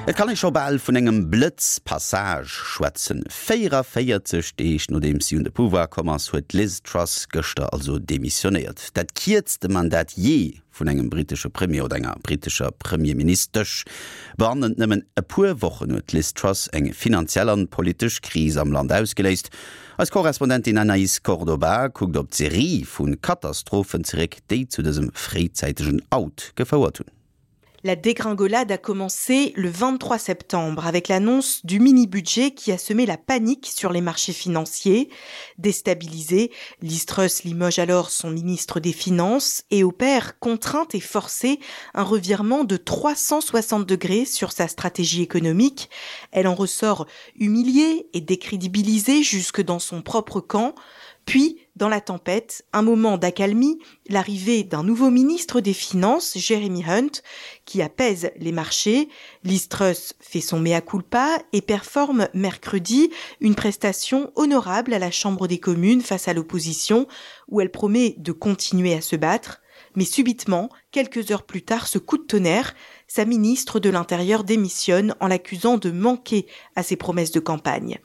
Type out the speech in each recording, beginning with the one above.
Et kann ee scho bal vun engem Blëtzpassage schwätzen. 44 Deeg nodeems si un de Pouvoir komm ass, huet d'Liz Truss gëschter also demissionéiert. Dat kierzte Mandat jee vun engem brittesche Premier oder enger brittescher Premierministesch. Bannent nëmmen e puer Wochen huet d'Liz Truss eng finanziell an politesch Kris am Land ausgeléist. Eis Korrespondentin Anaïs Cordoba kuckt op d'Serie vu Katastrophen zeréck, déi zu dësem fréizäitegen Out gefouert hunn. La dégringolade a commencé le 23 septembre avec l'annonce du mini-budget qui a semé la panique sur les marchés financiers. Déstabilisé, Listrus limoge alors son ministre des Finances et opère, contrainte et forcée, un revirement de 360 degrés sur sa stratégie économique. Elle en ressort humiliée et décrédibilisée jusque dans son propre camp. Puis, dans la tempête, un moment d'accalmie, l'arrivée d'un nouveau ministre des Finances, Jeremy Hunt, qui apaise les marchés. Liz Truss fait son mea culpa et performe mercredi une prestation honorable à la Chambre des communes face à l'opposition, où elle promet de continuer à se battre. Mais subitement, quelques heures plus tard, ce coup de tonnerre, sa ministre de l'Intérieur démissionne en l'accusant de manquer à ses promesses de campagne.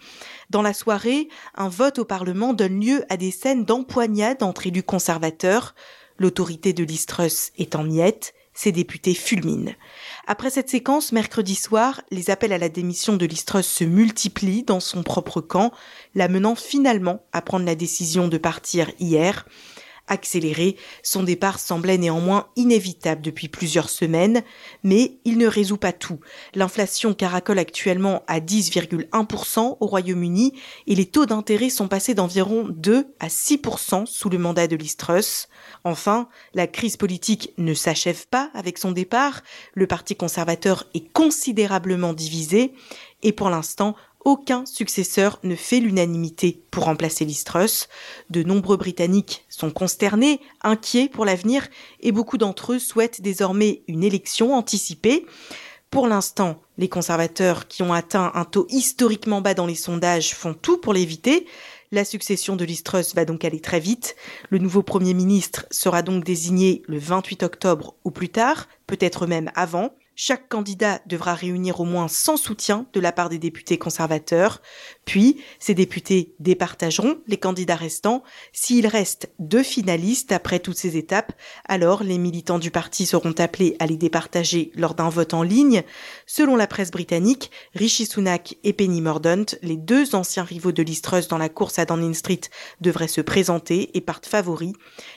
Dans la soirée, un vote au Parlement donne lieu à des scènes d'empoignade entre élus conservateurs. L'autorité de l'Istrus est en miettes, ses députés fulminent. Après cette séquence, mercredi soir, les appels à la démission de l'Istrus se multiplient dans son propre camp, l'amenant finalement à prendre la décision de partir hier. Accéléré, son départ semblait néanmoins inévitable depuis plusieurs semaines, mais il ne résout pas tout. L'inflation caracole actuellement à 10,1% au Royaume-Uni et les taux d'intérêt sont passés d'environ 2 à 6% sous le mandat de l'Istrus. Enfin, la crise politique ne s'achève pas avec son départ, le parti conservateur est considérablement divisé et pour l'instant, aucun successeur ne fait l'unanimité pour remplacer Listrus. De nombreux Britanniques sont consternés, inquiets pour l'avenir et beaucoup d'entre eux souhaitent désormais une élection anticipée. Pour l'instant, les conservateurs qui ont atteint un taux historiquement bas dans les sondages font tout pour l'éviter. La succession de Listrus va donc aller très vite. Le nouveau Premier ministre sera donc désigné le 28 octobre ou plus tard, peut-être même avant. Chaque candidat devra réunir au moins 100 soutiens de la part des députés conservateurs. Puis, ces députés départageront les candidats restants. S'il reste deux finalistes après toutes ces étapes, alors les militants du parti seront appelés à les départager lors d'un vote en ligne. Selon la presse britannique, Rishi Sunak et Penny Mordaunt, les deux anciens rivaux de Liz Truss dans la course à Downing Street, devraient se présenter et partent favoris.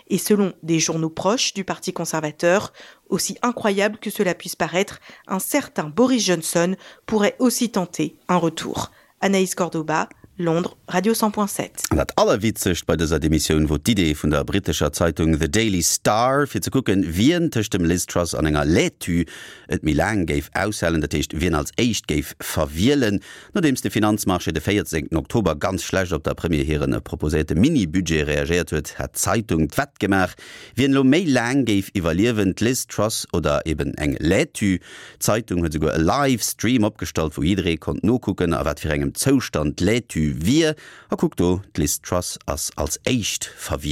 Et selon des journaux proches du parti conservateur, aussi incroyable que cela puisse paraître, un certain Boris Johnson pourrait aussi tenter un retour. Anaïs Cordoba, Londres, Radio 100.7. An dat Allerwitzegst bei dëser Demissioun wor d'Idee vun der brittescher Zeitung The Daily Star, fir ze kucken, wien tëscht dem Liz Truss an enger Laitue et méi laang géif aushalen, dat heescht, wien als éischt géif verwielen. Nodeems de Finanzmarché de 14 Oktober ganz schlecht op der Premier hire proposéierte Mini-Budget reagéiert huet, hat d'Zeitung d'Wett gemaach, wien elo méi laang géif iwwerliewen, d'Liz Truss oder eben eng Laitue. D'Zeitung huet esouguer e Live-Stream opgestallt, wou jidderee konnt nokucken, a wat fir engem Zoustand d'Laitue wier. A kuck do, d'Liz Truss ass als éischt verwielt.